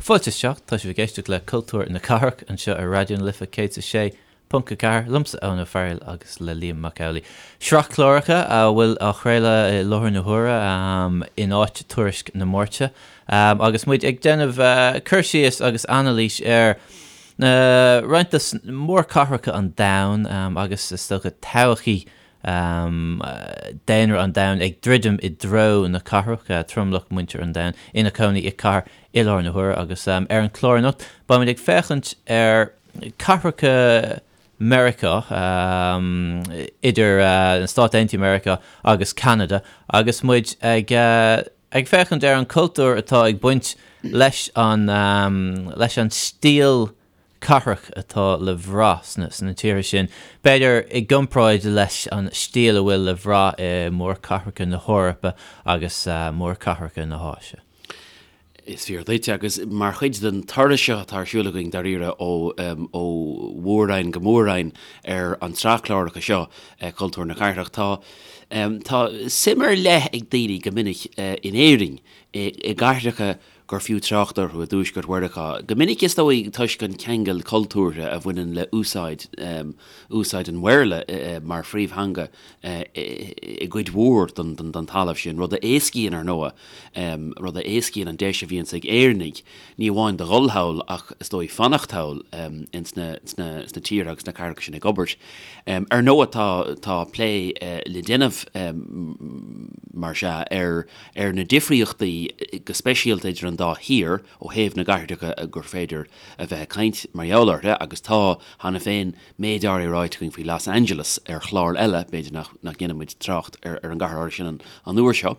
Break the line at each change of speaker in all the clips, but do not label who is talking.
Fáilte isteach, tá sibh ag éisteacht le Cultúr na Cathrach anseo ar Raidió na Life 106.4, liomsa Eoin Ó Fearghail agus le Liam Mac Amhlaigh. Sraith cláracha a bhfuil á chraoladh i láthair na huaire in áit Tuairisc na Máirte agus muid ag déanamh cur síos agus anailís ar na roinnt de mhórchathracha an domhain agus is dócha todhchaí daonra an domhain ag druidim i dtreo na cathrach, tromlach muintir an domhain ina cónaí i cathair i láthair na huaire agus ar an chlár anocht beimid ag féachaint ar cathracha Meiriceá, idir na Stáit Aontaithe Meiriceá agus Ceanada agus muid ag ag féachaint ar an cultúr atá ag baint leis an leis an stíl cathrach atá le bhrath sna sna tíortha sin, b'fhéidir i gcomparáid leis an stíl a bhfuil le bhrath i mórchathracha na hEorpa agus mórchathracha na hÁise.
Is fíor duit, agus mar chuid den turas seo atá ar siúl againn dáiríre ó ó mhór-roinn go mór-roinn ar an tsraith cláracha seo, Cultúr na Cathrach, tá tá suim ar leith ag daoine go minic in Éirinn i gcathracha gur fiú trácht orthu i dTuaisceart Mheiriceá, go minic is dóigh toisc an ceangal cultúrtha a bhaineann le úsáid úsáid an Bhéarla mar phríomhtheanga i gcuid mhór den talamh sin, rud a éascaíonn, ar ndóigh, rud a éascaíonn an deis a bhíonns ag Éireannaigh ní amháin do dhul thall ach is dóigh fanacht thall ins na sna tíortha agus sna cathracha sin ag obair. Ar ndóigh tá tá plé le déanamh mar sea ar ar na difríochtaí go speisialta idir an dá thír ó thaobh na gcathracha gur féidir a bheith ag caint mar gheall orthu agus tá cheana féin méid áirithe ráite againn faoi Los Angeles ar chlár eile, b'fhéidir nach ndéanfaidh muid trácht ar an gcathair áirithe sin an uair seo.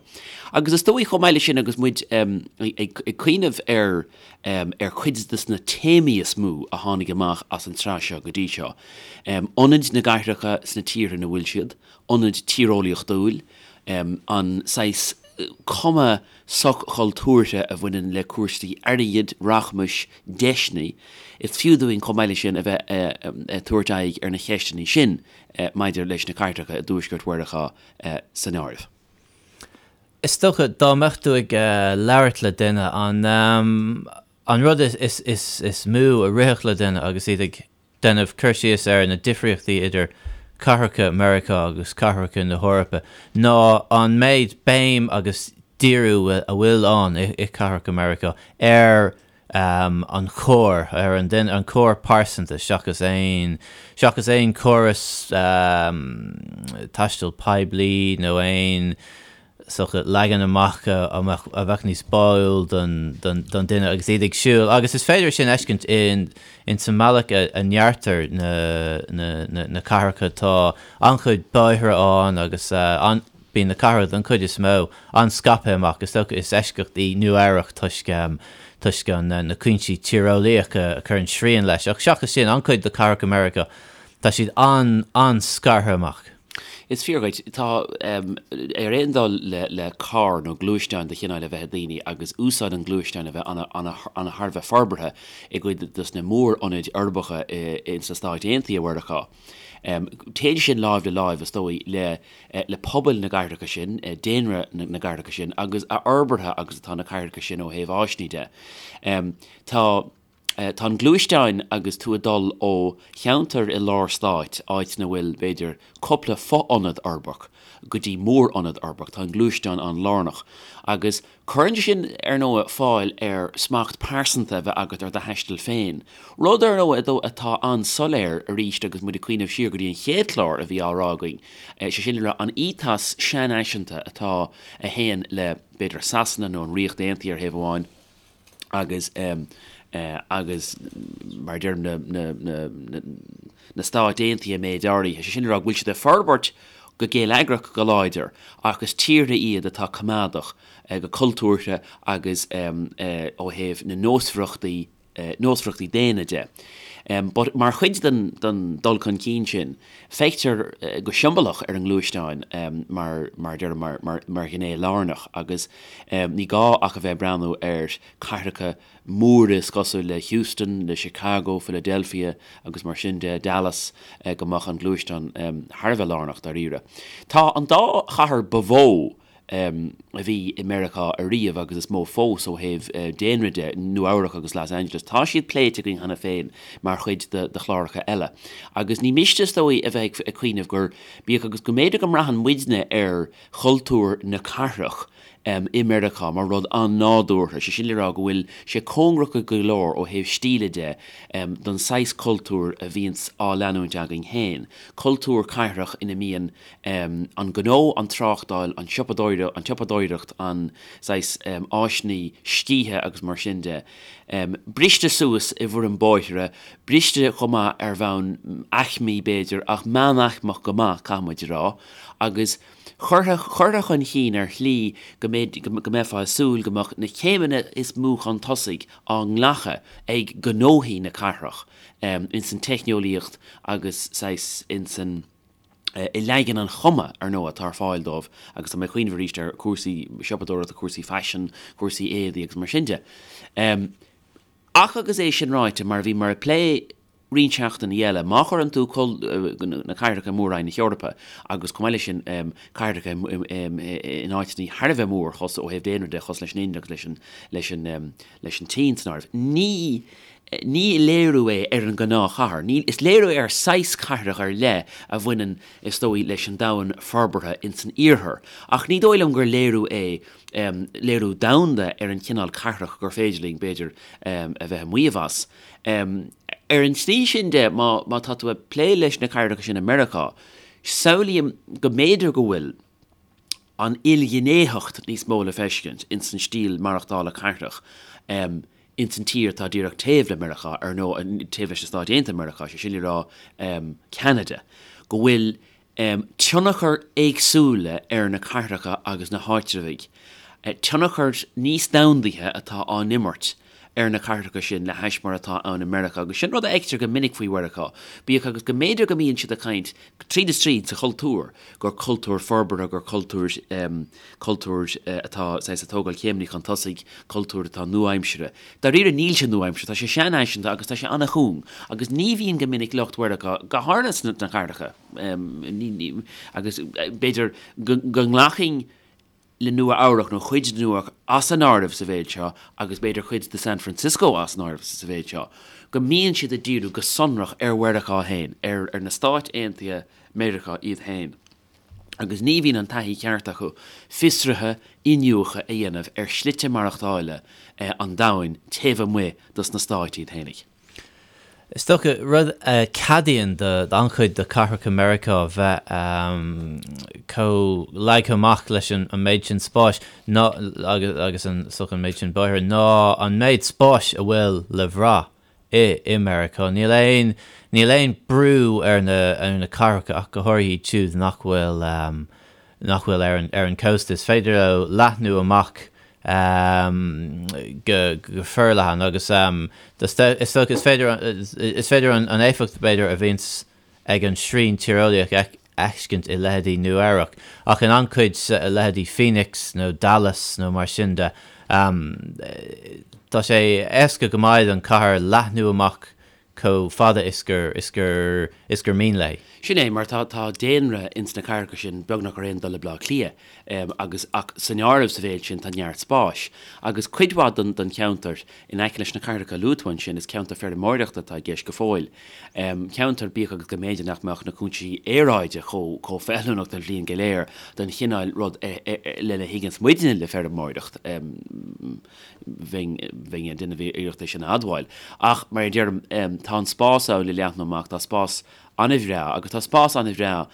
Agus is dóigh chomh maith leis sin agus muid ag cuimhneamh ar ar chuid de na téamaí is mó a tháinig amach as an tsraith seo go dtí seo, ionaid na gcathracha sna tíortha ina bhfuil siad, ionad tíreolaíochtúil, an saghas cuma soch-chultúrtha a bhaineann le cúrsaí airgid, rachmais, deiseanna. Is fiú dúinn chomh maith leis sin a bheith ag tabhairt aghaidh ar na cheisteanna sin maidir leis na cathracha i dTuaisceart Mheiriceá san áireamh.
Is dócha, dá mbeadh tú ag labhairt le duine, an rud is mó a rithfeadh le duine agus iad ag déanamh cur síos ar na difríochtaí idir cathracha Meiriceá agus cathracha na hEorpa ná an méid béim agus díriú a bhfuil ann i cathracha Meiriceá ar an charr, ar an duine, an carr pearsanta seachas aon, seachas aon chóras taistil poiblí nó aon sórt leagan amach a bheadh níos báúil don duine agus iad ag siúl agus is féidir sin a fheiscint in sa mbealach a ndeartar na cathracha. Tá an-chuid bóithre ann agus bíonn na cathracha don chuid is mó an-scaipthe amach. Is dócha is eisceacht í Nua Eabhrac toisc toisc na cúinsí tíreolaíocha a chuireann srian leis ach seachas sin an-chuid de chathracha Meiriceá tá siad an-an-scartha amach.
Is fíor dhuit. Tá, ar aon dul le carr nó gluaisteáin de chineál a bheith ag daoine agus úsáid an ghluaisteáin a bheith ana thar a bheith forbartha i gcuid dos na mór-ionaid uirbeacha ins na Stáit Aontaithe Mheiriceá. Téann sin láimh le láimh, is dóigh, le le pobail na gcathracha sin, daonra na gcathracha sin agus a fhorbartha agus atá na cathracha sin ó thaobh áiseanna de. Tá. Tá an gluaisteáin agus tú ag dul ó cheantar i lár stáit, áit ina bhfuil, b'fhéidir, cúpla fo-ionad uirbeach, go dtí mór-ionad uirbeach, tá an gluaisteán an-lárnach. Agus cuireann sé sin, ar ndóigh, fáil ar smacht pearsanta a bheith agat ar do thaisteal féin. Rud, ar ndóigh, atá an-soiléir arís agus muid ag cuimhneamh siar go dtí an chéad chlár a bhí á rá againn, sé sin le rá, an ethos seanfhaiseanta atá, a théann le, b'fhéidir, Sasana nó an Ríocht Aontaithe ar thaobh amháin, agus agus mar a deirim na na na na Stáit Aontaithe méid áirithe, sé sin le rá go bhfuil siad ag forbairt go geilleagrach go láidir ach is tíortha iad atá coimeádach go cultúrtha agus ó thaobh na nósmhaireachtaí nósmhaireachtaí daonna de. But mar chuid den den dul chun cinn sin, feictear go siombalach ar an ngluaisteán mar mar a deirim mar mar mar ghné lárnach agus Ní gá ach a bheith ag breathnú ar cathracha móra is cosúil le Houston, le Chicago, Philadelphia agus mar sin de, Dallas, go mbeadh an gluaisteán thar a bheith lárnach dáiríre. Tá an dá chathair ba mhó. a bhí i Meiriceá ariamh agus is mó fós ó thaobh daonra de, Nua Eabhrac agus Los Angeles. Tá siad pléite againn cheana féin mar chuid de chláracha eile. Agus ní miste is dóigh a bheith ag cuimhneamh gur, bíodh agus go mb'fhéidir go mbraitheann muidne ar chultúr na cathrach i Meiriceá mar rud an-nádúrtha, sé sin le rá go bhfuil sé cóngarach go leor ó thaobh stíle de don saghas cultúir a bhíonns á leanúint againn féin, cultúr cathrach ina mbíonn an gnó, an tráchtáil, an tsiopadóireacht, an tsiopadóireacht, an saghas áiseanna scíthe agus mar sin de, briste suas i bhfoirm bóithre, briste chomh maith ar bhonn aicmí b'fhéidir, ach meánaicmeach go maith, caithfidh muid a rá, agus curtha, curtha chun chinn ar shlí go mbeidh, go mbeifeá ag súil go mbeadh na céimeanna is mó chun tosaigh á nglacadh ag gnóthaí na cathrach ins an teicneolaíocht agus saghas ins an. i leagan an chuma, ar ndóigh, atá ar fáil dóibh agus tá mé ag cuimhneamh arís ar chúrsaí siopadóireachta, cúrsaí faisin, cúrsaí éadaí agus mar sin de. Ach agus é sin ráite, mar a bhíomar ag plé roinnt seachtainí eile, má chuireann tú na cathracha i Mór-Roinn na hEorpa agus chomh maith leis sin cathracha in áiteanna thar a bheith mór ó thaobh daonra de, cosúil leis an Ind agus leis an leis an tSín san áireamh. Ní ní léiriú é ar an ngnáthchathair. Ní, is léiriú é ar saghas cathrach ar leith a bhaineann, is dóigh, leis an domhan forbartha ins an iarthar. Ach ní dóigh liom gur léiriú é, léiriú domhanda ar an chineál cathrach gur féidir linn, b'fhéidir, a bheith ag maíomh as. Ar an tslí sin de, má, má tá tú ag plé leis na cathracha sin i Meiriceá, samhlaím go mb'fhéidir go bhfuil, an ilghnéitheacht níos mó le feiscint ins an stíl maireachtála cathrach ins an tír atá díreach taobh le Meiriceá, ar ndóigh, taobh leis na Stáit Aontaithe Meiriceá, sé sin le rá Ceanada, go bhfuil tionchar éagsúla ar na cathracha agus na háitreabhaigh, tionchar níos domhandaithe atá á n-imirt ar na cathracha sin le hais mar atá ann i Meiriceá, agus sin rud a fheictear go minic faoi Mheiriceá, bíodh agus go mb'fhéidir go mbíonn siad ag caint tríd is tríd sa chultúr, gur cultúr forbartha, gur cultúr, cultúr atá saghas ag tógáil céimeanna chun tosaigh, cultúr atá nua-aimseartha. Dáiríre níl sé nua-aimseartha, tá sé seanfhaiseanta agus tá sé an-chúng, agus ní bhíonn go minic lucht Mheiriceá, go háirithe sna cathracha, agus b'fhéidir go nglacfainn le Nua Eabhrac nó cuid de Nua Eabhrac as an áireamh sa mhéid seo agus b'fhéidir cuid de San Francisco as an áireamh sa mhéid seo, go mbíonn siad ag díriú go sonrach ar Mheiriceá féin, ar ar na Stáit Aontaithe Meiriceá iad féin. Agus ní bhíonn an taithí cheart acu fiosruithe, iniúchadh a dhéanamh ar shlite maireachtála an domhain taobh amuigh dos na Stáit iad féinig.
Is dócha, rud a cheadaíonn d'an-chuid de chathracha Meiriceá bheith chomh leagtha amach leis an méid sin spáis ná, agus an, is dócha an méid sin bóithre, ná an méid spáis a bhfuil le bhrath i i Meiriceá. Níl aon, níl aon brú ar na, ar na cathracha ach go háirithe iad siúd nach bhfuil, nach bhfuil ar an, ar an cósta. Is féidir leo leathnú amach go forleathan agus is dócha is féidir is féidir an éifeacht b'fhéidir a bhíonns ag an srian tíreolaíoch a fheiscint i leithéidí Nua Eabhrac ach in an-chuid leithéidí Phoenix nó Dallas nó mar sin de tá sé éasca go maith don chathair leathnú amach chomh fada is gur is gur is gur mian léi.
Sin é, mar tá tá daonra ins na cathracha sin beagnach ar aon dul le Bleá Cliath, agus ach san áireamh sa mhéid sin tá neart spáis. Agus cuid mhaith den den cheantar in aice leis na cathracha a luaigh tú ansin, is ceantar feirmeoireachta atá i gceist go fóill. Ceantar, bíodh agus go mb'fhéidir nach mbeadh na cúinsí aeráide chomh chomh feiliúnach don bhliain go léir don chineál rud lena thuigeanns muidne le feirmeoireacht. Bheinn ag déanamh iarracht é sin a admháil. Ach, mar a deirim, tá an spás ann le leathnú amach, tá spás an-bhreá, agus tá spás an-bhreá,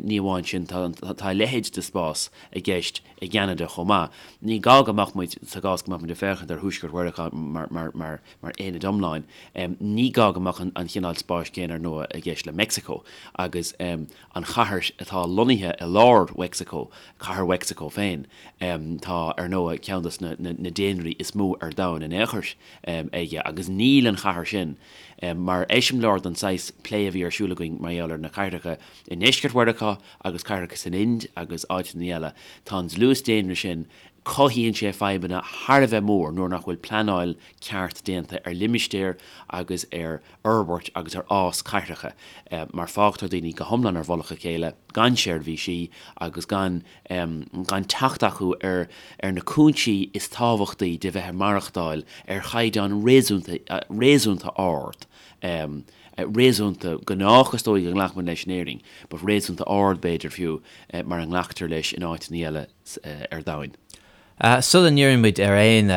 ní amháin sin, tá a leithéid de spás i gceist i gCeanada chomh maith. Ní gá go mbeadh muid, sa gcás go mbeadh muid ag féachaint ar Thuaisceart Mheiriceá mar aonad iomlán, ní gá go mbeadh an chineál spáis céanna, ar ndóigh, i gceist le Meicsiceo agus an chathair atá lonnaithe i lár Mheicsiceo, Cathair Mheicsiceo féin. Tá, ar ndóigh, ceann de na daonraí is mó ar domhan in aon chor aige agus níl an chathair sin mar eiseamláir den saghas plé a bhí ar siúl againn mar gheall ar na cathracha i ndeisceart Mheiriceá agus cathracha san Ind agus áiteanna eile. Tá an dlús daonra sin. Cothaíonn sé fadhbanna thar a bheith mór nuair nach bhfuil pleanáil ceart déanta ar limistéir agus ar fhorbairt agus ar fhás cathracha mar fágtar daoine go hiomlán ar mhullach a chéile gan seirbhísí agus gan gan teacht acu ar ar na cúinsí is tábhachtaí de bheith ag maireachtáil ar chaighdeán réasúnta réasúnta ard réasúnta gnách is dóigh go nglacfaimid leis in Éirinn but réasúnta ard b'fhéidir fiú mar a nglactar leis in áiteanna eile ar domhain.
Sula ndíríonn muid ar aon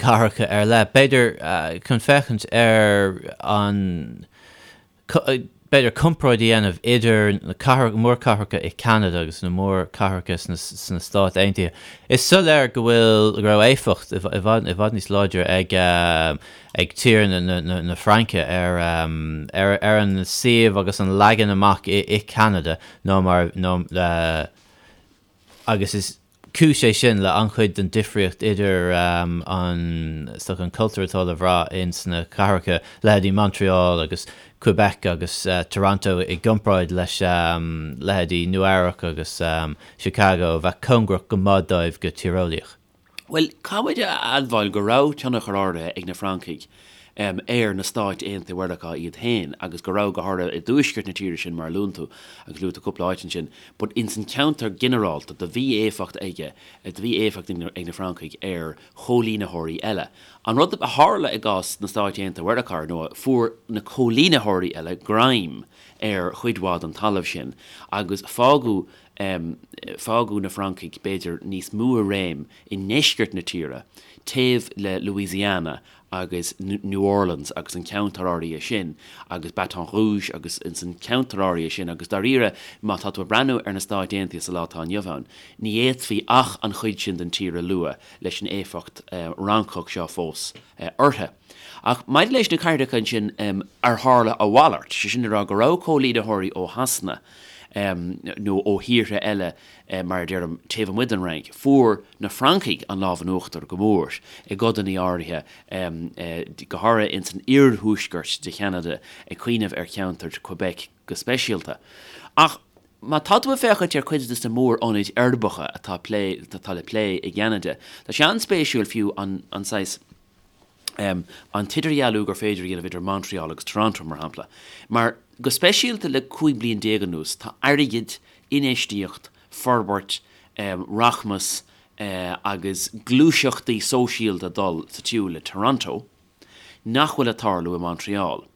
cathracha ar leith, b'fhéidir chun féachaint ar an, b'fhéidir comparáid a dhéanamh idir na mórchathracha i Ceanada agus na mórchathracha sna Stáit Aontaithe. Is soiléir go bhfuil, go raibh éifeacht i bhfad, i bhfad níos láidre ag ag tír na Fraince ar ar an suíomh agus an leagan amach i Ceanada ná mar, ná agus is cúis é sin le an-chuid den difríocht idir an, is dócha, an cultúr atá le bhrath ins na cathracha, leithéidí Montreal agus Quebec agus Toronto i gcomparáid leis leithéidí Nua Eabhrac agus Chicago a bheadh cóngarach go maith dóibh go tíreolaíoch.
Bhuel, caithfidh muid a admháil go raibh tionchar áirithe ag na Francaigh ar na Stáit Aontaithe Mheiriceá iad féin agus go raibh, go háirithe i dtuaisceart na tíre sin mar a luann tú, agus luaigh tú cúpla áit ansin, but ins an ceantar ginearálta do bhí éifeacht aige, do bhí éifeacht ag na Francaigh ar chóilínitheoirí eile. An rud a tharla i gcás na Stáit Aontaithe Mheiriceá, ar ndóigh, fuair na cóilínitheoirí eile greim ar chuid mhaith den talamh sin agus fágadh Fágadh na Francaigh, b'fhéidir, níos mó i réim i ndeisceart na tíre, taobh le Louisiana agus New Orleans agus an ceantar áirithe sin, agus Baton Rouge agus ins an ceantar áirithe sin, agus dáiríre, má tá tú ag breathnú ar na Stáit Aontaithe sa lá atá inniu ann, ní fhéadfaí ach an chuid sin den tír a lua leis an éifeacht Fhrancach seo fós orthu. Ach maidir leis na cathracha ansin ar tharla a mhalairt, sé sin le rá go raibh cóilínitheoirí ó Shasana, nó ó thíortha eile, mar a deirim, taobh amuigh den Fhrainc, fuair na Francaigh an lámh in uachtar go mór i gcodanna áirithe, go háirithe ins an iarthuaisceart de Cheanada, ag cuimhneamh ar cheantar Quebec go speisialta. Ach má tá tú ag féachaint ar chuid de na mór-ionaid uirbeacha atá atá le plé i gCeanada, tá sé an-spéisiúil fiú an saghas, an t-idirdhealú gur féidir a dhéanamh idir Montreal agus Toronto, mar shampla. Mar, go speisialta le 15 bliain anuas, tá airgead, infheistíocht, forbairt, rachmas agus gluaiseachtaí sóisialta ag dul sa tsiúl le Toronto nach bhfuil ag tarlú i Montreal.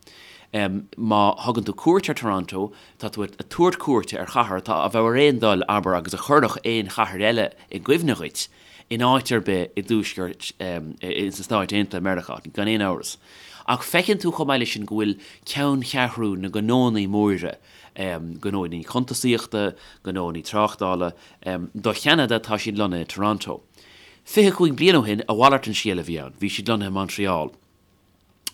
Má thugann tú cuairt ar Toronto, tá tú ag tabhairt cuairte ar chathair atá a bheadh ar aon dul, abair, agus a chuirfeadh aon chathair eile i gcuimhne dhuit, in áit ar bith i dtuaisceart ins na Stáit Aontaithe Meiriceá, gan aon amhras. Ach feiceann tú chomh maith leis sin go bhfuil ceanncheathrú na ngnónnaí móra, gnónnaí cuntasaíochta, gnónnaí tráchtála, do Cheanada, tá siad lonnaithe i Toronto. 25 bliain ó shin, a mhalairt an scéal a bhí ann, bhí siad lonnaithe i Montreal.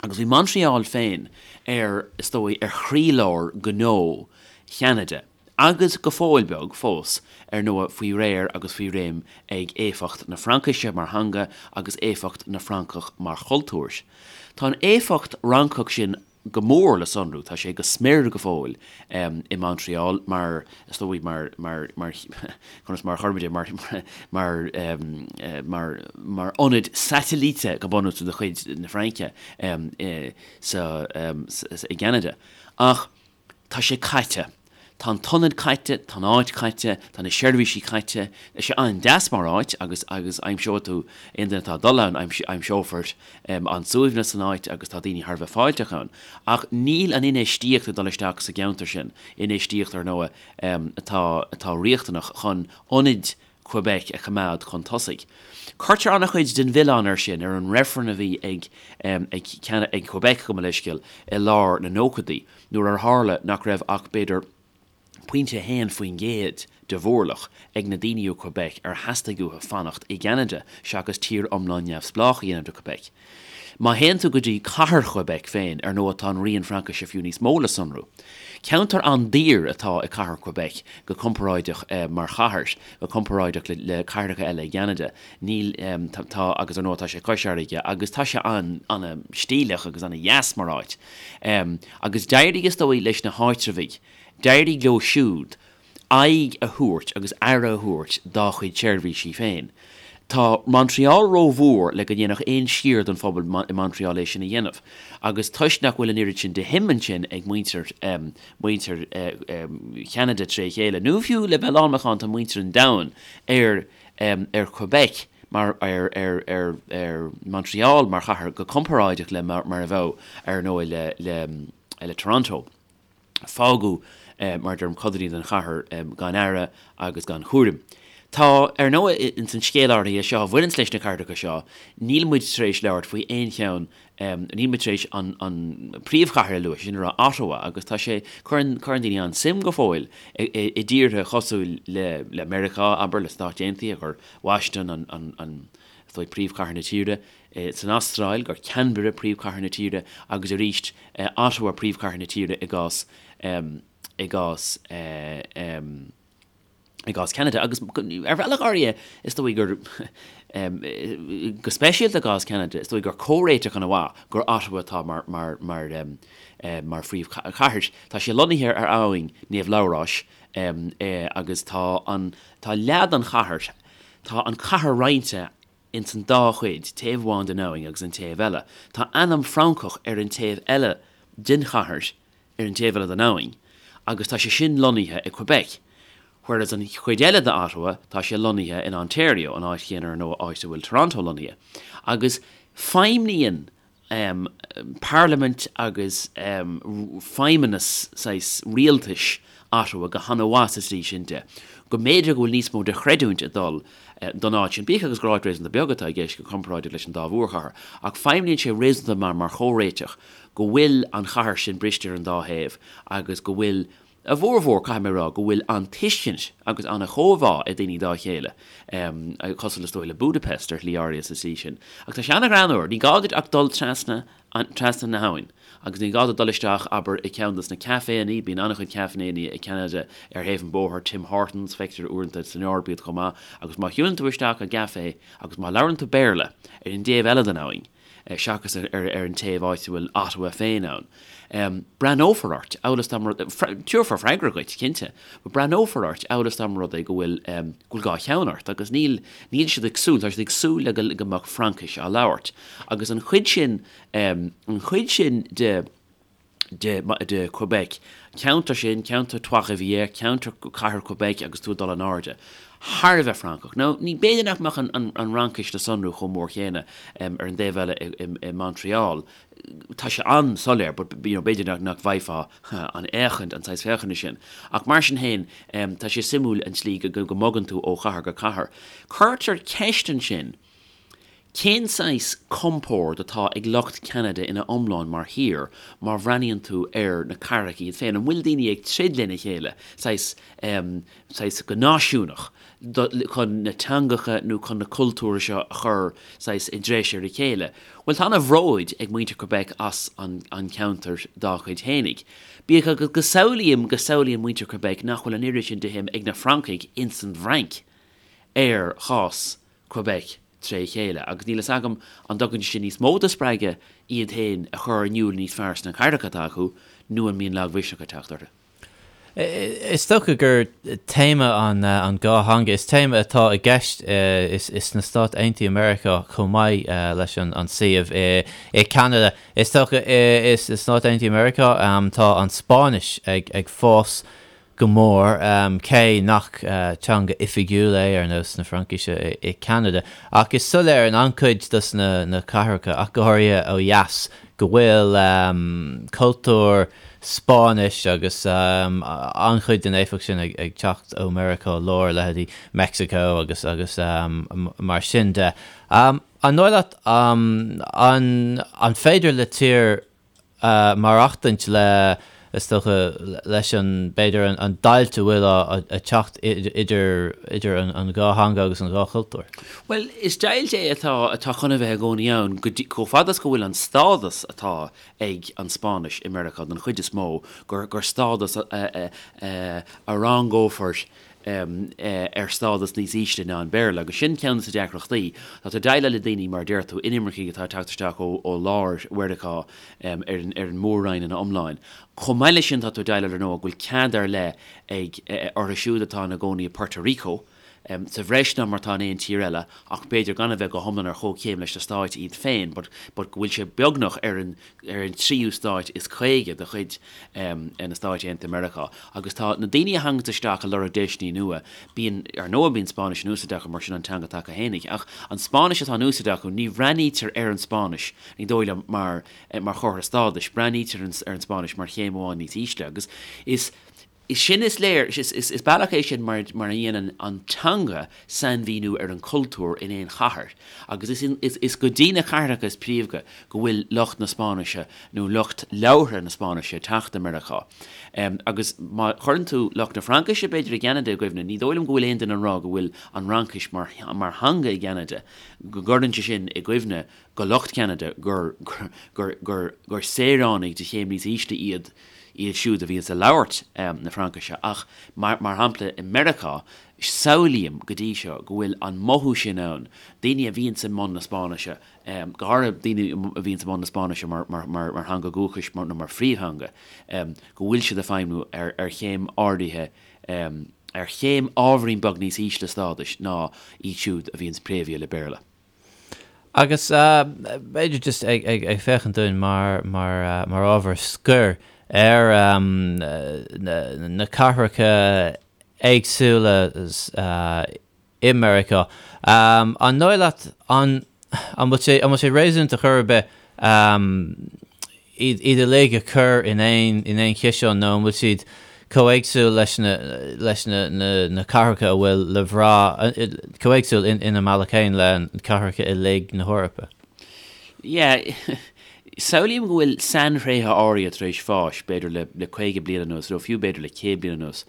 Agus bhí Montreal féin ar, is dóigh, ar chroílár gnó Cheanada, agus go fóill beag fós, ar ndóigh, faoi réir agus faoi réim ag éifeacht na Fraincise mar theanga agus éifeacht na Francach mar chultúr. Tá an éifeacht Fhrancach sin go mór le sonrú, tá sé go smior go fóill i Montreal mar, is dóigh, mar, mar, mar, conas mar a chuirfimid é, mar, mar, mar, mar ionad satailíte go bunúsach de chuid na Fraince sa, i gCeanada. Ach tá sé caite. Tá an t-ionad caite, tá an áit caite, tá na seirbhísí caite. Tá sé an-deas mar áit agus, agus aimseoidh tú, aon duine atá ag dul ann, aimseofar an-suaimhneas san áit agus tá daoine thar a bheith fáilteach ann. Ach níl an infheistíocht ag dul isteach sa gceantar sin, infheistíocht, ar ndóigh, atá atá riachtanach chun ionaid Quebec a choimeád chun tosaigh. Cuirtear an-chuid den mhilleán air sin ar an reifreann a bhí ag ag ag Quebec, gabh mo leithscéal, i lár na nóchaidí, nuair ar tharla nach raibh ach b'fhéidir pointe 1% de mhórlach ag na daoine ó Quebec ar theastaigh uathu fanacht i gCeanada seachas tír iomlán neamhspleách a dhéanamh de Quebec. Má théann tú go dtí cathair Quebec féin, ar ndóigh tá an rian Fraincise fiú níos mó le sonrú. Ceantar an-daor atá i cathair Quebec go comparáideach mar chathair, go comparáideach le cathracha eile i gCeanada. Níl, tá, agus ar ndóigh tá sé cois fharraige agus tá sé an-stíleach agus an-dheas mar áit. Agus d'éirigh is dóigh leis na háitreabhaigh, d'éirigh leo siúd aghaidh a thabhairt agus aire a thabhairt dá chuid seirbhísí féin. Tá Montreal rómhór le go ndéanfadh aon sciar den phobal i Montreal é sin a dhéanamh, agus toisc nach bhfuil an oiread sin de shuim ansin ag muintir, muintir Cheanada tré chéile, nó fiú le bheith lánmhacánta muintir an domhain ar, ar Quebec mar, ar, ar, ar, ar Montreal mar chathair go comparáideach le mar a bheadh, ar ndóigh, le, le, le Toronto. Fágadh, mar a deirim, codanna den chathair gan aire agus gan chúram. Tá, ar ndóigh, ins an scéal áirithe seo a bhaineanns leis na cathracha seo, níl muid tar éis labhairt faoi aon cheann, níl muid tar éis an príomhchathair a lua, sin a rá Ottawa, agus tá sé, cuireann, cuireann daoine an-suim go fóill i dtíortha cosúil le, le Meiriceá, abair, le Stáit Aontaithe, gur Washington an, an, an, is dóigh, príomhchathair na tíre. san Astráil, gur Canberra príomhchathair na tíre agus arís Ottawa príomhchathair na tíre i gcás i gcás i gcás Ceanada. Agus ar bhealach áirithe is dóigh gur go speisialta i gcás Ceanada is dóigh gur comhréiteach ana mhaith gur Ottawa atá mar mar mar mar phríomhchathair. Tá sé lonnaithe ar abhainn Naomh Labhráis agus tá an tá leath den chathair tá an cathair roinnte ins an dá chuid, taobh amháin den abhainn agus an taobh eile. Tá ainm Francach ar an taobh eile den chathair, ar an taobh eile den abhainn, agus tá sé sin lonnaithe i Quebec, whereas an chuid eile de Ottawa, tá sé lonnaithe in Ontario, an áit chéanna ar ndóigh áit a bhfuil Toronto lonnaithe. Agus feidhmníonn parlaimint agus feidhmeannas saghas rialtais Ottawa go han-mhaith sa tslí sin de, go mb'fhéidir go bhfuil níos mó de chreidiúint ag dul don áit sin, bíodh agus gur áit réasúnta beag atá i gceist go comparáideach leis an dá mhórchathair, ach feidhmníonn sé réasúnta maith mar chomhréiteach go bhfuil an chathair sin briste ar an dá thaobh agus go bhfuil A bhformhór, caithfidh mé a rá, go bhfuil an-tuiscint agus an-chomhbhá ag daoine dá chéile, cosúil is dóigh le Budapest ar shlí áirithe sa tslí sin. Ach tá sé an-ghreannmhar, ní gá duit ach dul trasna, trasna na habhann agus ní gá duit dul isteach, abair, i gceann dos na caiféanna, bíonn an-chuid caiféanna i gCeanada ar thaobh an bhóthair, Tim Hortons, feictear uaireanta san Eoraip iad chomh maith, agus má shiúlann tú isteach i gcaifé agus má labhrann tú Béarla ar an dtaobh eile den abhainn, seachas ar an taobh áit a bhfuil Ottawa féin ann. Breathnófar ort, amhail is dá mba rud, tabharfar freagra dhuit, cinnte, but breathnófar ort amhail is dá mba rud é go bhfuil, go bhfuil dhá cheann ort agus níl, níl siad ag súil, tá siad ag súil le go mbeadh Fraincis á labhairt. Agus an chuid sin, an chuid sin de, de, de Quebec, ceantar sin, ceantar Trois-Rivières, ceantar cathair Quebec agus tú ag dul in airde, thar a bheith Francach. Now, ní, b'fhéidir nach mbeadh an, an, an Fhraincis le sonrú chomh mór chéanna ar an dtaobh eile i, i, i Montreal. Tá sé an-soiléir, but, you know, b'fhéidir nach, nach bhfaighfeá an fhéachaint, an saghas féachana sin. Ach mar sin féin, tá sé suimiúil an tslí go, go, go mbogann tú ó chathair go cathair. Cuirtear ceist ansin, Cén saghas compord atá ag lucht Cheanada ina iomlán mar thír má bhreathnaíonn tú ar na cathracha iad féin? An bhfuil daoine ag troid lena chéile, saghas, saghas go náisiúnach, chun na teangacha nó chun na cultúir seo a chur saghas i dtreis ar a chéile? Bhuel, tá ana-bhróid ag muintir Quebec as an cheantar dá chuid fhéinig. Bíodh agus go samhlaím, go samhlaíonn muintir Quebec nach bhfuil an oiread sin de shuim ag na Francaigh ins an bhFrainc ar chás Quebec tré chéile, agus níl fhios agam an dtugann sé sin níos mó de spreagadh iad féin a chur in iúl níos fearr sna cathracha atá acu, nó an mbíonn lagmhisneach ag teacht orthu.
Is dócha gur téama an an dhá theanga, is téama atá i gceist sna Stáit Aontaithe Meiriceá chomh maith leis an suíomh i Ceanada. Is dócha sna Stáit Aontaithe Meiriceá tá an Spáinnis ag fás go mór, cé nach teanga oifigiúil é ar nós na Fraincise i Ceanada. Ach is soiléir in an-chuid dos na cathracha, ach go háirithe ó dheas, go bhfuil cultúr Spáinnis agus an-chuid den éifeacht sin ag teacht ó Mheiriceá Láir, leithéidí Meicsiceo agus agus mar sin de. An dóigh leat an féidir le tír maireachtaint le, is dócha, leis an, b'fhéidir, an deighilt a bhfuil ag teacht idir, idir an dhá theanga agus an dhá chultúr.
Bhuel, is deighilt é atá, atá chun a bheith i gcónaí ann go dtí, chomh fada is go bhfuil an stádas atá ag an Spáinnis i Meiriceá don chuid is mó, gur, gur stádas a, a, a, a rangófar ar stádas níos ísle ná an Béarla, agus sin ceann de na deacrachtaí. Tá tú ag déileáil le daoine, mar a deir tú, inimircigh atá ag teacht isteach ó lár Mheiriceá ar an mór-roinn ina iomláin. Chomh maith leis sin, tá tú ag déileáil, ar ndóigh, go bhfuil cead ar leith ag orthu siúd atá ina gcónaí i Puerto Rico. sa bhreis ná mar atá in aon tír eile ach b'fhéidir gan a bheith go hiomlán ar chomhchéim leis na stáit iad féin but but go bhfuil sé beagnach ar an ar an tríú stáit is 50 de chuid na Stáit Aontaithe Meiriceá. Agus tá na daoine a thaganns isteach ag lorg deiseanna nua, bíonn, ar ndóigh bíonn Spáinnis in úsáid acu mar sin an teanga atá acu fhéinig, ach an Spáinnis atá in úsáid acu, ní bhreathnaítear ar an Spáinnis, ní dóigh liom, mar mar chomhartha stádais, breathnaítear ar an Spáinnis mar chéim amháin níos ísle. Agus is. Is sin is léir, is bealach é sin mar mar a dhéanann an teanga sainmhíniú ar an chultúr in aon chathair agus is is go dtí na cathracha is príomha go bhfuil lucht na Spáinnise nó lucht labhartha na Spáinnise ag teacht i Meiriceá. Agus má chuireann tú lucht na Fraincise b'fhéidir i gCeanada i gcuimhne, ní dóigh liom go bhfuil aon duine ag rá go bhfuil an Fhraincis mar mar theanga i gCeanada, go gcuireann sé sin i gcuimhne go lucht Cheanada gur gur gur gur saoránaigh de chéim níos ísle iad iad siúd a bhíonns ag labhairt na Fraincise, ach mar shampla i Meiriceá, samhlaím go dtí seo go bhfuil an mothú sin ann, daoine a bhíonns i mbun na Spáinnise, go háirithe daoine a bhíonns i mbun na Spáinnise mar theanga dhúchais nó mar phríomhtheanga, go bhfuil siad ag feidhmiú ar chéim áirithe, ar chéim ábhairín beag níos ísle stádais ná iad siúd a bhíonns préamhaithe le Béarla.
Agus b'fhéidir just ag féachaint dúinn mar mar ábhar scoir ar na cathracha éagsúla i Meiriceá, an dóigh leat an bhfuil sé an bhfuil sé réasúnta chor ar bith iad uilig a chur in aon in aon chiseán nó an bhfuil siad chomh éagsúil leis na leis na na na cathracha a bhfuil le bhrath chomh éagsúil in ina mbealach féin le cathracha uilig na hEorpa?
Yeah, samhlaím go bhfuil sainthréithe áirithe tar éis fáis, b'fhéidir le le 50 bliain anuas nó fiú b'fhéidir le 100 bliain anuas.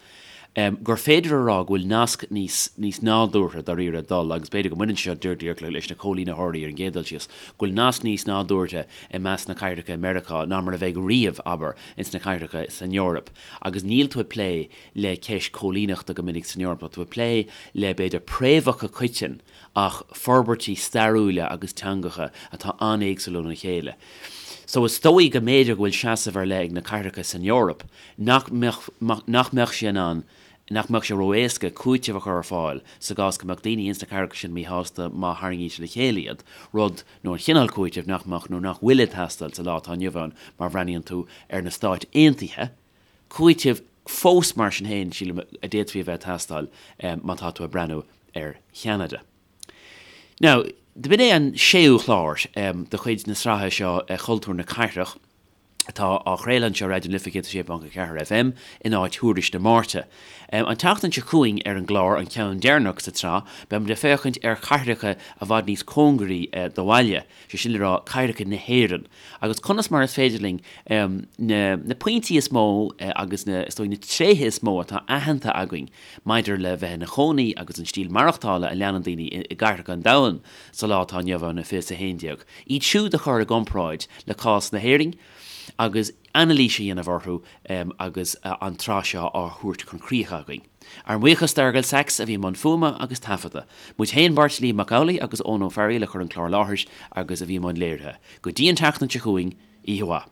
gur féidir a rá go bhfuil nasc níos níos nádúrtha dáiríre ag dul, agus b'fhéidir go mbaineann sé seo díreach leis na coilínitheoirí ar an gcéad dul síos, go bhfuil nasc níos nádúrtha i measc na cathracha i Meiriceá ná mar a bheidh riamh, abair, ins na cathracha san Eoraip. Agus níl tú ag plé le ceist coilíneachta go minic san Eoraip, tá tú ag plé le, b'fhéidir, préamhacha coiteann ach forbairtí stairiúla agus teangacha atá an-éagsúil óna chéile. So is dóigh go mb'fhéidir go bhfuil seasamh ar leith ag na cathracha san Eoraip nach mbeadh, nach mbeadh sé in ann, nach mbeadh sé ró-éasca cúiteamh a chur ar fáil sa gcás go mbeadh daoine ins na cathracha sin míshásta má tharraingítear le chéile iad, rud, nó an chineál cúitimh nach mbeadh nó nach bhfuil ag teastáil sa lá atá inniu ann má bhreathnaíonn tú ar na Stáit Aontaithe, cúiteamh fós mar sin féin, sílim, a d'fhéadfaí a bheith ag teastáil má tá tú ag breathnú ar Cheanada. Now, b'in é an séú chlár de chuid na sraithe seo Cultúr na Cathrach. atá á chraoladh anseo ar Raidió na Life 106.4 FM in áit Thuairisc na Máirte. An tseachtain seo chugainn ar an gclár, an ceann deireanach sa tsraith, beimid ag féachaint ar chathracha i bhfad níos cóngaraí do bhaile, sé sin le rá cathracha na hÉireann, agus conas mar is féidir linn na na pointí is mó agus na, is dóigh, na tréithe is mó atá aitheanta againn maidir le bheith ina chónaí agus an stíl maireachtála a leanann daoine i gcathracha an domhain sa lá atá inniu ann, 2011. Iad siúd a chur i gcomparáid le cás na hÉireann agus anailís a dhéanamh orthu agus an tsraith seo á thabhairt chun críche againn. Ár mbuíochas d'Fhearghal Saxe a bhí i mbun fuaime agus taifeadta. Muid féin, beirt, Liam Mac Amhlaigh agus Eoin Ó Fearghaíl a chuir an clár i láthair agus a bhí i mbun léirithe. Go dtí an tseachtain seo chugainn, oíche mhaith.